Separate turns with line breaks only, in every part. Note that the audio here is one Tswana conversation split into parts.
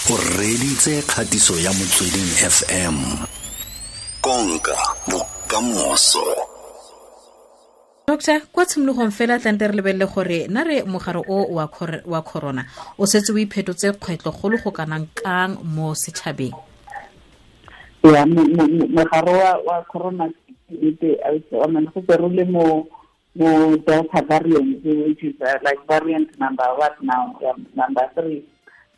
O reditse kgatiso ya Motsweding FM. Konka bokamoso.
Doctor, kwa tshimologong fela tlante re lebelele gore na re mogare o wa corona o setse o iphetotse kgwetlho golo go kanang kang mo setšhabeng?
Ya, mogare wa corona go re le mo Delta variant, which is like variant number what now, number 3.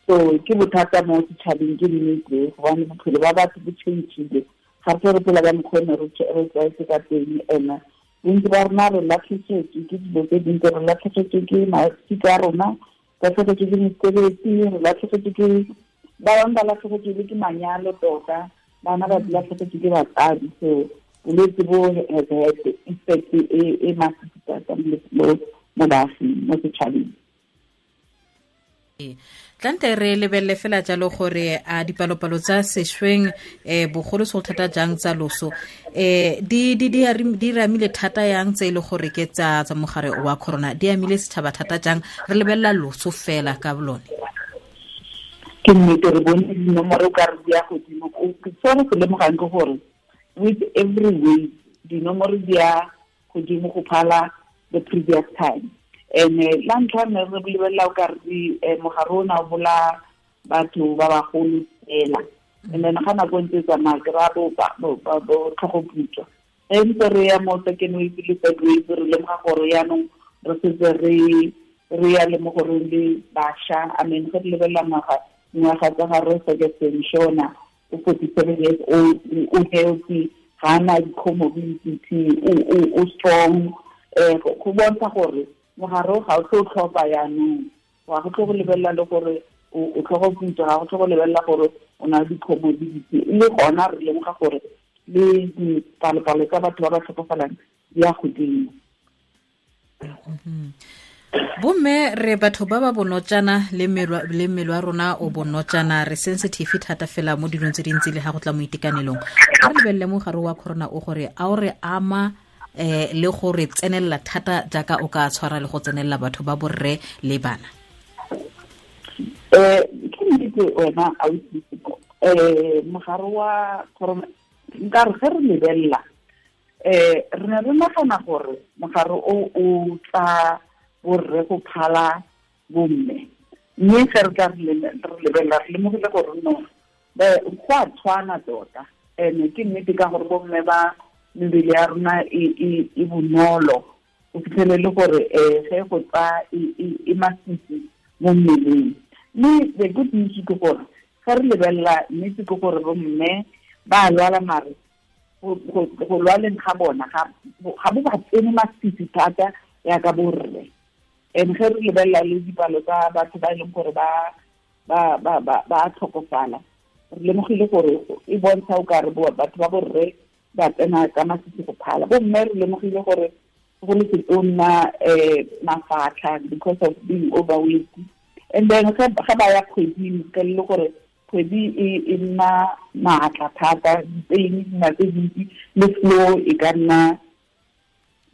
So ke bothata mo setšhabeng, ke nnete, gobane bophelo ba batho bo change-ile. Ga re re phela ka mokgwa ne re tlwaetse ka teng, ene bontsi ba rona re latlhegetswe ke dilo tse dintsi, re latlhegetswe ke masika a rona, latlhegetswe ke mesebetsi, re latlhegetswe ke ba bangwe, ba latlhegetswe le ke manyalo tota, bana ba latlhegetswe ke batsadi. So bolwetse bo has had effect e masisi thata mo baaging, mo setšhabeng.
Tlante re lebelele fela jalo gore a dipalopalo tsa sešweng bogolo se go thata jang tsa loso di ramile thata yang tse e le gore ke tsa mogare wa corona, di amile setšhaba thata jang, re lebelela loso fela ka lone?
Ke nnete, re bone dinomoro ka re di ya godimo. Se re se lemogang ke gore with every wave dinomoro di ya godimo go phala the previous time. And la ntlha ne re lebelela o ka re mogare ona o bolaya batho ba bagolo fela, and then ga nako ntse tsamaya ke ra bo tlhogoputswa. E ntse re ya mo second wave le third wave, re lemoga gore yaanong re setse re ya le mo goreng le bašwa. I mean, ge re lebelela ngwaga tsa ga re Ferguson Shona, o 47 years old, o healthy, ga ana di-comorbidity, o strong. Go bontsha gore mogare ga o tlo tlhopha yaanong, ga go tlo go lebelela le gore o tlhogoputswa, ga go tlo go lebelela gore o na le di-comorbidity. Le gona re lemoga gore le dipalopalo tsa batho ba ba tlhokofalang di ya godimo.
Bomme re batho ba ba bonotjana le mmele wa rona o bonotjana, re sensitive thata fela mo dilong tse dintsi le ga go tla mo itekanelong. Ga re lebelele mogare wa corona o gore a o re ama le gore tsenelela thata jaaka o ka tshwara le go tsenelela batho ba borre le bana?
Ke nnete wena mogare wa corona nka re ge re lebelela re ne re nagana gore mogare o tla borre go phala bomme, mme ge re tla re lebelela re lemogile gore no go a tshwana tota. And ke nnete ka gore bomme ba mebele ya rona e bonolo, o fitlhele le gore ge go tsa e masisi mo mmeleng. Mme the good news ke gore ge re lebelela nnete ke gore bomme ba lwala, mare go lwaleng ga bona ga bo ba tsene masisi thata yaka borre. And ge re lebelela le dipalo tsa batho ba e leng gore ba tlhokofala, re lemogile gore e bontsha o kare batho ba borre ba tsena ka masisi go phala. Bomme re lemogile gore go le setonna mafatlha because of being overweight. And then ga ba ya kgweding, ka le gore kgwedi e nna maatla thata, dipain di nna tse dintsi, le flow e ka nna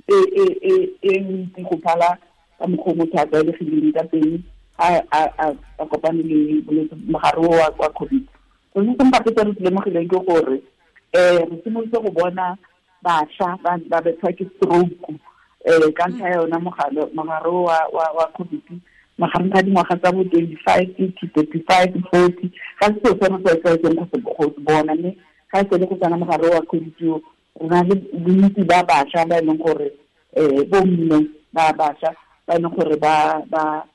e ntsi go phala ka mokgwa o motho a tlwaelegileng ka teng a kopane le bolwetse mogare wa COVID. So se sengwe gape se re se lemogileng ke gore re simolotse go bona bašwa ba bethwa ke stroke ka ntlha ya yona mogare wa COVID, magareng ga dingwaga tsa bo 25 to 35, 40. Ga se seo se re tlwaetseng go se bona, mme ga e sele go tsena mogare wa COVID o, re na le bontsi ba bašwa ba e leng gore bomme ba bašwa ba e leng gore ba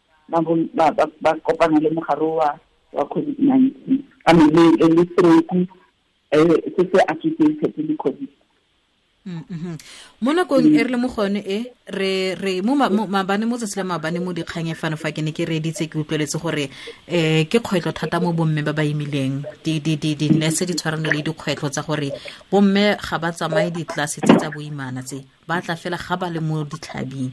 kopana le mogare wa COVID-19, I mean le stroke se se associated le COVID.
Mo nakong e re le mo go yone e re mo maabane, mo tsatsi la maabane mo dikgang e fano fa ke ne ke reeditse, ke utlweletse gore ke kgwetlho thata mo bomme ba ba imileng, di-nurse di tshwarane le dikgwetlho tsa gore bomme ga ba tsamaye ditlelase tse tsa boimana tse, ba tla fela ga ba le mo ditlhabing.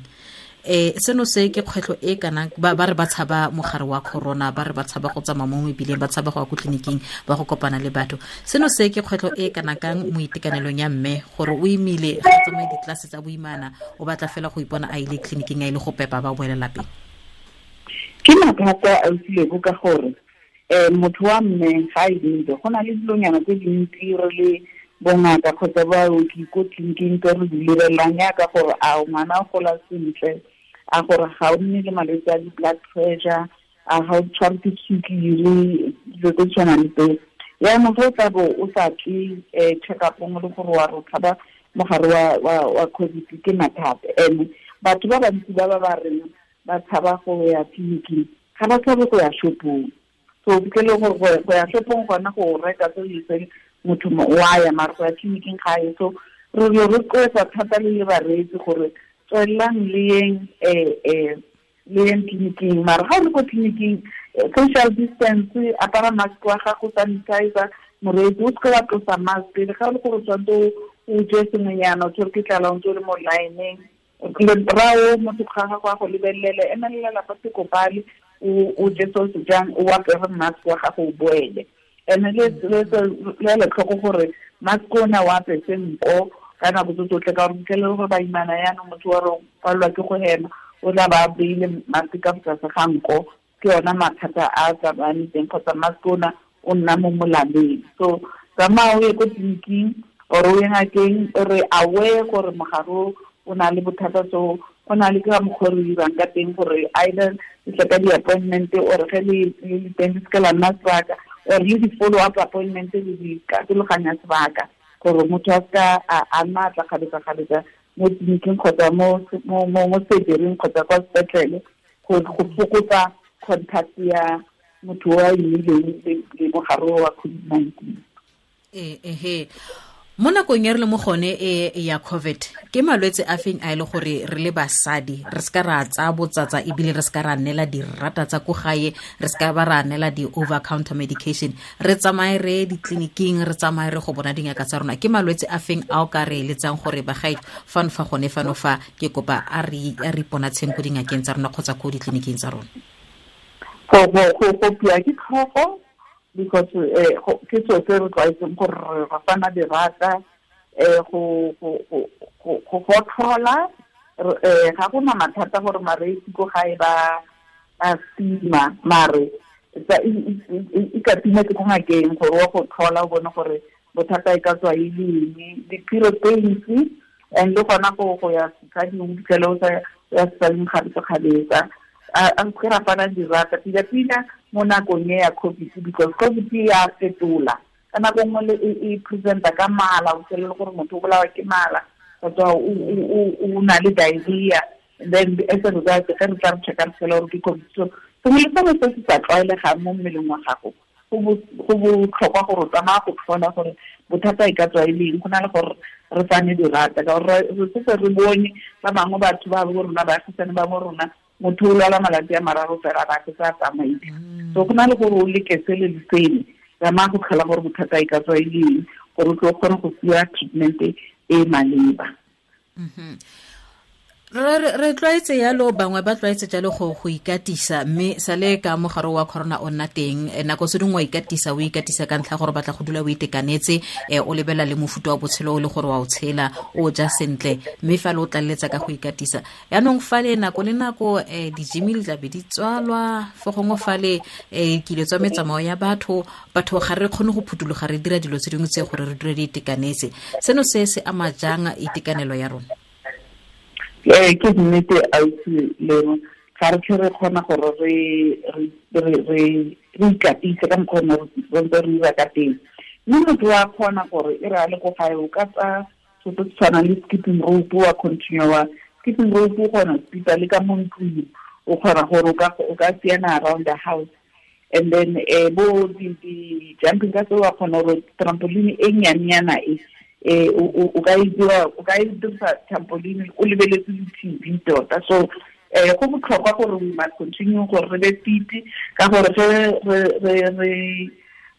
Seno se ke kgwetlho e kana ba re ba tshaba mogare wa corona, ba re ba tshaba go tsamaya mo mebileng, ba tshaba go ya ko tleliniking, ba go kopana le batho. Seno se ke kgwetlho e kana kang mo itekanelong ya mme gore o imile, ga tsamaye ditlelase tsa boimana, o batla fela go ipona a ile tleliniking, a ile go pepa, ba boela lapeng?
Ke mathata a utlwilego ka gore Motho wa mme ga e dintse go na le dilonyana tse dintsi re le bongaka kgotsa baoki ko tleliniking tse re di lebelelang yaka gore a ngwana o gola sentle, a gore ga o nne le malwetse a di-blood pressure, a ga o tshware ke sukiri, dilo tse tshwanang le tseo. Yaanong ge o tla bo o sa tle check-upong le gore wa re o tshaba mogare wa COVID ke mathata. And batho ba bantsi ba ba ba reng ba tshaba go ya tleliniking ga ba tshabe go ya shopong. So ke le gore go ya shopong gona go reka tse di itseng motho wa ya, mare go ya tleliniking ga ye. So re rotloetsa thata le bareetsi gore tswelelang le yeng le yeng tleliniking, mare ga o le ko tleliniking social distance, apara mask wa gago, sanitizer, moreetsi o seke wa tlosa mask. Le ga o le gore o tshwanetse o je sengwenyana, o tshwere ke tlala o ntse o le mo line-eng, rao motho ga gago a go lebelele, emelela lapa sekopale, o je se o se jang, o apere mask wa gago o boele. And le le tlhoko gore mask ona o apese nko ka nako tse tsotlhe, ka gore fitlhelele gore baimana yaanong motho wa re o palelwa ke go hema, o tla ba beile mask ka tlase ga nko, ke yona mathata a tsamayang teng, kgotsa mask ona o nna mo molaleng. So tsamaya o ye ko tleliniking or o ye ngakeng, re aware gore mogare o na le bothata, so go na le ka mokgwa re dirang ka teng gore either le tle ka di-appointment or ge le le teng le seke la nna sebaka, or le di-follow up appointment le di katologanya sebaka gore motho a seka a nna a tla kgabetsa-kgabetsa mo tleliniking kgotsa mo surgery-ing kgotsa kwa sepetlele, go fokotsa contact ya motho o a imileng le mogare wa COVID-19.
Ehe, mo nakong e re le mo gone e ya COVID, ke malwetse a feng a e le gore re le basadi re seka ra tsaya botsatsa, ebile re seka ra neela dirata tsa ko gae, re seka ba ra neela di-over counter medication, re tsamaye re ditleliniking, re tsamaye re go bona dingaka tsa rona? Ke malwetse a feng a o ka re eletsang gore bagae fano fa gone fano fa ke kopa a re iponatsheng ko dingakeng tsa rona kgotsa ko ditleliniking tsa rona?
Go kopiwa ke tlhogo, because ke seo se re tlwaetseng gore re fana dirata, go gotlhola, ga gona mathata gore mareetsi ko gae ba stima, mare e ka tima ke ko ngakeng gore wa go tlhola o bone gore bothata e ka tswa e le eng. Di-period pains, and le gona go ya setsading o fitlhele o sa ya setsading kgabetsa-kgabetsa. A se ra fana dirata pila-pila mo nakong e ya COVID, because COVID ya fetola ka nako nngwe e presenta ka mala, o fitlhelele gore motho o bolawa ke mala kgotsa o na le diarrhea, and then as a result ge re tla re checka re fitlhela gore ke COVID. So sengwe le sengwe se se sa tlwaelegang mo mmeleng wa gago go botlhokwa gore o tsamaya go tlhola gore bothata e ka tswa e le eng, go na le gore re fane dirata, ka gore re setse re bone ba bangwe batho ba bo rona, baagisane ba bo rona, motho o lwala malatsi a mararo fela ba se sa tsamaile. So go na le gore o leke sele le sele, tsamaya go tlhola gore bothata e ka tswa e le eng, gore o tlo kgone go fiwa treatment e maleba.
Re tlwaetse yalo, bangwe ba tlwaetse jalo go ikatisa, mme sale ka mogare wa corona o nna teng, nako se dingwe wa ikatisa, o ikatisa ka ntlha gore batla go dula o itekanetse, o lebela le mofuta wa botshelo o le gore wa o tshela, o ja sentle, mme fa le o tlaleletsa ka go ikatisa. Yaanong fale nako le nako di-gym di tla be di tswalwa, fo gongwe fale kile tswa metsamao ya batho, batho ga re kgone go phuthuloga re dira dilo tse dingwe tse gore re dule di itekanetse. Seno se se ama jang itekanelo ya rona?
Ke nnete ausi Lebo, ga re tlhe re kgona gore re ikatise ka mokgwa o re ntse re dira ka teng. Mme motho wa kgona gore e re a le ko gae o ka tsaya so se tshwanang le skipping rope, wa continue wa skipping rope, o kgona go skipa le ka mo ntlong, o kgona gore o ka siana around the house, and then bo di jumping ka tseo wa kgona gore trampoline e nnyane e o ka e dira, o ka e dirisa trampoline o lebeletse di-T_V tota. So go botlhokwa gore we must continue gore re be fit, ka gore ge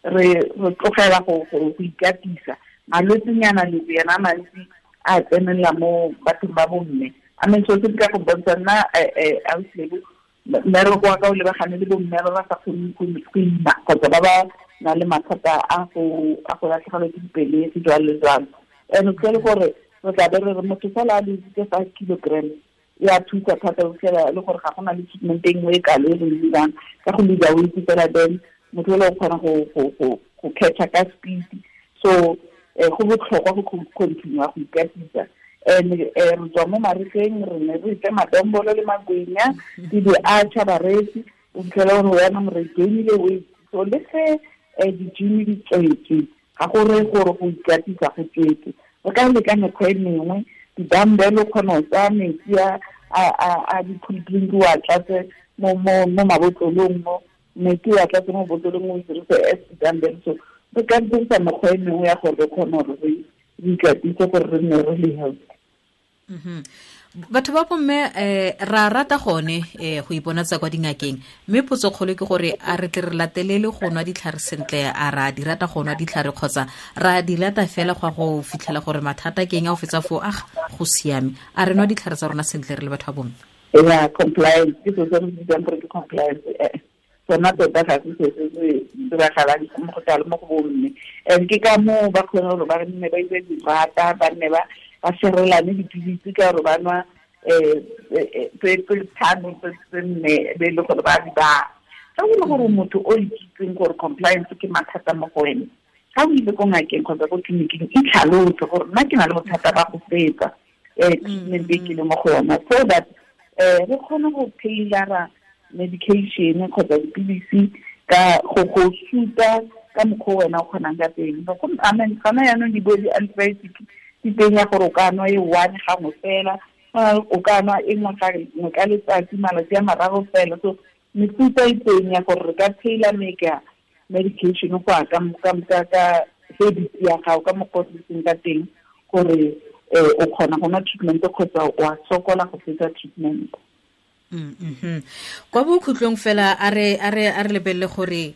re tlogela go ikatisa, malwetsenyana le yena a mantsi a tsenelela mo bathong ba bomme. I mean, so se ka go bontsha nna ausi Lebo, mmereko wa ka o lebagane le bomme ba ba sa kgoneng go ima kgotsa ba ba na le mathata a go latlhegelwa ke dipelegi jalo le jalo. And o fitlhele gore re tla be re re motho fela a lositse 5 kilograms ya thusa thata, o fitlhela le gore ga gona le treatment e nngwe e kalo e re e dirang ka go lose weight fela, then Motho o kgona go catch ka speed. So go botlhokwa go continue go ikatisa. And re tswa mo marigeng re ne re itse madombolo le magwenya di di-archer bareetsi o fitlhela gore wena re gainile weight. So le ge di-gym di tswetswe ga go reye gore go ikatisa go tswetswe. Re ka leka mekgwa e mengwe, di-dumbbell o kgona go tsaya metsi a di-cool drink o a tlatse mo mabotlolong mo metsi o a tlatse mo botlolong o dirise as di-dumbbell. So re ka dirisa mekgwa e mengwe ya gore re kgone gore re ikatise gore re nne re le healthy.
Batho ba bomme ra rata gone go iponatsa kwa dingakeng, mme potso kgolo ke gore a re tle re latelele go nwa ditlhare sentle, a ra di rata go nwa ditlhare kgotsa ra di lata fela go go fitlhela gore mathata ke eng a o fetsa foo a go siame. A re nwa ditlhare tsa rona sentle re le batho ba bomme?
Yeah, compliance ke se re bitsang gore ke compliance. Sona tota ga se se se diragalang mo go tla mo go bomme. And ke ka moo ba kgone gore ba nne ba itse dirata, ba nne ba serelane dipilisi ka gore ba nwa tse tlhano tse nne be e le gore ba di ba. Ga o le gore motho o ikitseng gore compliance ke mathata mo go wena, ga o ile ko ngakeng kgotsa ko tleliniking itlhalose gore nna ke na le bothata ba go fetsa treatment e ke le mo go yona, so that re kgone go tailora medication kgotsa dipilisi ka go suta ka mokgwa wena o kgonang ka teng. Gona jaanong di bo di-antibiotic di teng ya gore o ka nwa e one gangwe fela, o ka nwa e nngwe ka letsatsi malatsi a mararo fela. So mefuta e teng ya gore re ka tailor make medication go ya ka habit ya gago, ka mokgwa o seng ka teng gore o kgona go nwa treatment kgotsa o a sokola go fetsa treatment.
Kwa bokhutlong fela a re lebelele gore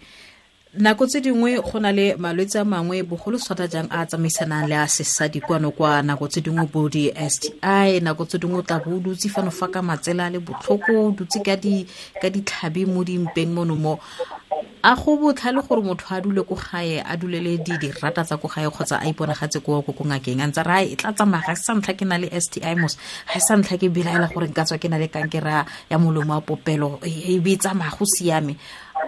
nako tse dingwe go na le malwetse a mangwe bogolo thata jang a tsamaisanang le a sesadi kwano kwa, nako tse dingwe bo di-STI, nako tse dingwe o tla bo o dutse fano fa ka matsela a le botlhoko, o dutse ka ditlhabi mo dimpeng mono mo. A go botlhale gore motho a dule ko gae, a dulele dirata tsa ko gae kgotsa a iponagatse ko ngakeng a ntse re e tla tsamaya, ga se sa ntlha ke na le STI mos, ga se sa ntlha ke belaela gore nka tswa ke na le kankere ya molomo wa popelo, e be e tsamaya go siame.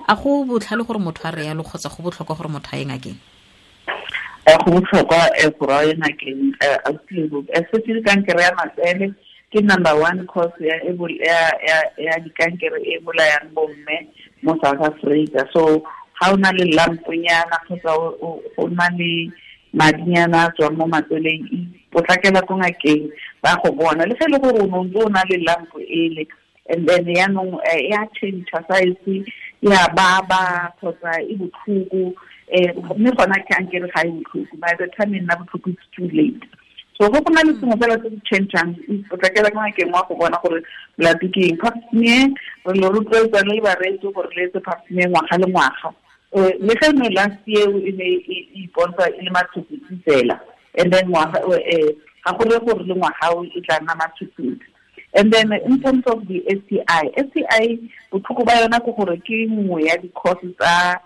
A go botlhale gore motho a re yalo kgotsa go botlhokwa gore motho a ye ngakeng?
Go botlhokwa gore a ye ngakeng. Especially kankere ya matsele ke number one cause ya dikankere e bolayang bomme mo South Africa. So ga o na le lamponyana kgotsa o na le madinyana a tswang mo matseleng, potlakela ko ngakeng ba go bona. Le ge e le gore o ne o na le lampo ele, and then yaanong ya change size, ya baba kgotsa e botlhoko, mme gona kankere ga e botlhoko, by the time e nna botlhoko it's too late. So go na le sengwe fela se se changeang, potlakela ko ngakeng wa go bona gore molato ke eng. Pap smear re le rotloetsa le bareetsi gore le etse pap smear ngwaga le ngwaga. Le ge ne last year e ne e ipontsha e le matshutshutsi fela, and then ngwaga ga go reye gore le ngwaga o e tla nna matshutshutsi. And then in terms of the STI botlhoko ba yona ke gore ke nngwe ya di-causes tsa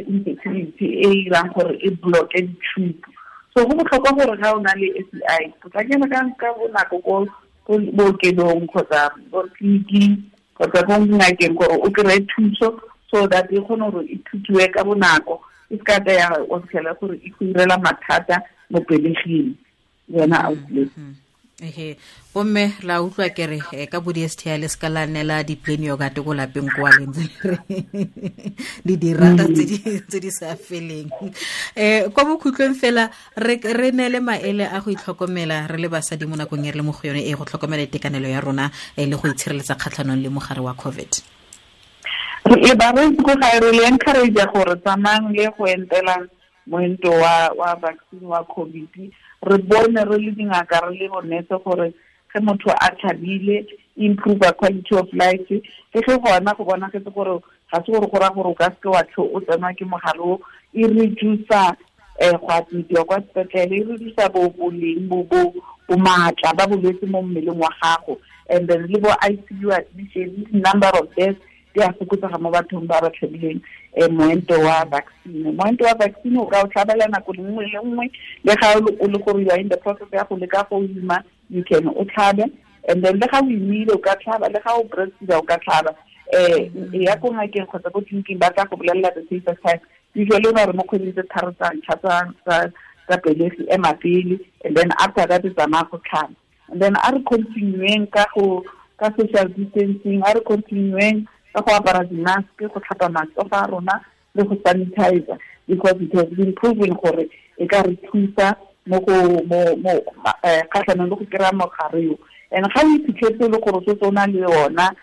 infertility e irang gore e blocke di-tube. So go botlhokwa gore ga o na le STI potlakela ka bonako ko bookelong kgotsa ko tleliniking kgotsa ko ngakeng gore o kry-e thuso, so that e kgone gore e thusiwe ka bonako, e se ka tla ya o fitlhela gore e go irela mathata mo peleging yona outlet.
Ehe, bomme la utlwa ke re ka bo di-STI le se ka la neela di-plain yogurt ko lapeng kwa le ntse le re le dirata tse di sa feleng. Kwa bokhutlong fela re neele maele a go itlhokomela re le basadi mo nakong e re le mo go yone e go tlhokomela itekanelo ya rona le go itshireletsa kgatlhanong le mogare wa COVID.
Re bareetsi ko gae re le encourage gore tsamayang le go entela moento wa vaccine wa COVID. Re bone re le dingaka re le bonetse gore ge motho a tlhabile improve quality of life. Le ge gona go bonagetse gore ga se gore go raya gore o ka seke wa tlho o tsenwa ke mogare o, e reducer go admitiwa kwa sepetlele, e reducer boleng bo maatla ba bolwetse mo mmeleng wa gago, and then le bo ICU admission, number of deaths di a fokotsega mo bathong ba ba tlhabileng moento wa vaccine. Moento wa vaccine o ka o tlhabela nako nngwe le nngwe, le ga o le gore you are in the process ya go leka go ima, you can o tlhabe, and then le ga o imile o ka tlhaba, le ga o breastfeeda o ka tlhaba. Ya ko ngakeng kgotsa ko tleliniking ba tla go bolelela the safest time. Usually ba re mo kgweding tse tharo tsa ntlha tsa pelegi ema pele, and then after that tsamaya go tlhaba. And then a re continueng ka social distancing, a re continueng ka go apara di-mask, go tlhapa matsogo a rona le go sanitizer, because it has been proven gore e ka re thusa mo go mo kgatlhanong le go kry-a mogare yo. And ga o iphitlhetse le gore o setse o na le yona,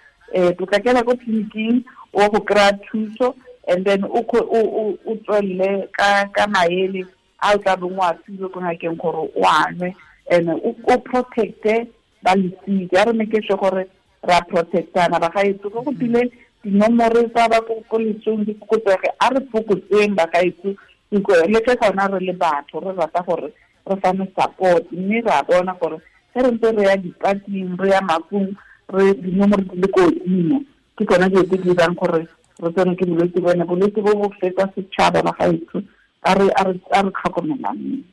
potlakela ko tleliniking o go kry-a thuso, and then o tswelele ka maele a o tla beng o a filwe ko ngakeng gore o a nwe, and o protecte ba losika. A re make sure gore ra protectana bagaetsho. Go tile dinomoro tsa ba ko lesong di fokotsege, a re fokotseng bagaetsho, le ke gona re le batho re rata gore re fane support, mme ra bona gore ge re ntse re ya dipating, re ya mafung, re dinomoro di le ko godimo, ke tsona dilo tse di dirang gore re tsene ke bolwetse bone. Bolwetse bo bo fetsa setšhaba bagaetsho, a re tlhokomelaneng.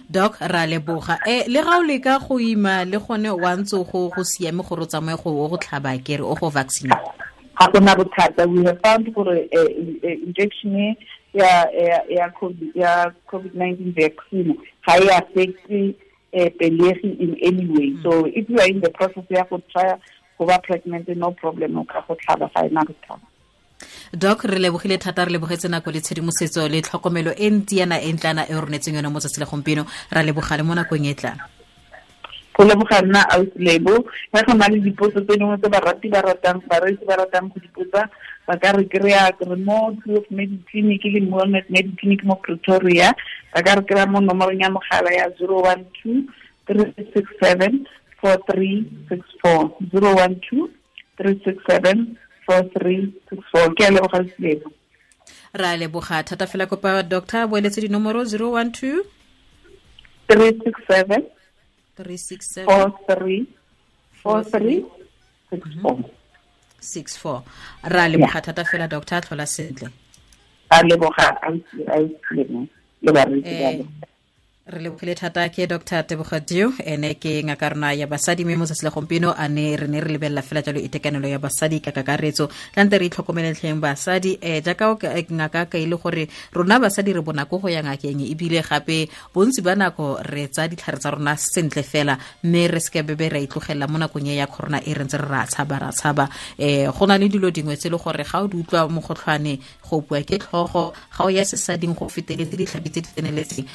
Doc, ra leboga. Le ga o leka go ima le gone wa ntse go siame gore o tsamaye go tlhaba kere o go vaccine?
Ga gona bothata. We have found gore injection ya COVID-19 vaccine ga e affect pelegi in any way. So if you are in the process ya go try go ba pregnant, no problem, o ka go tlhaba, ga ena bothata.
Doc, re lebogile thata, re lebogetse nako le tshedimosetso le tlhokomelo e ntsi yana e ntlana e ronetseng yone mo tsatsi la gompieno. Ra leboga le mo nakong e tlang.
Go leboga nna ausi Lebo. Ga go na le dipotso tse dingwe tse barati ba ratang, bareetsi ba ratang go dipotsa, ba ka re kry-a re mo Kloof Mediclinic le Moelnet Mediclinic mo Pretoria. Ba ka re kry-a mo nomorong ya mogala ya 012 367 4364, 012 367 4364. Ke a leboga Lebo.
Ra leboga thata fela. Kopa doctor boeletse dinomoro 012
367
367
43 64
64. Ra leboga thata fela doctor, tlhola sentle.
Ra leboga ausi le bareetsi ba.
Re lebogile thata ke Dr. Tebogo Dew, ene ke ngaka rona ya basadi, mme mo tsatsi la gompieno a ne re ne re lebelela fela jalo itekanelo ya basadi ka kakaretso. Tlante re itlhokomeletlheng basadi, jaaka ngaka ka ile gore rona basadi re bonako go ya ngakeng, ebile gape bontsi ba nako re tsa ditlhare tsa rona sentle fela, mme re seke bebe ra itlogela mo nakong e ya corona e re ntse re ra tshaba. Go na le dilo dingwe tse le gore ga o di utlwa mogotlhwane, go bua ke tlhogo, ga o ya sesading go feteletse ditlhabi tse di tseneletseng,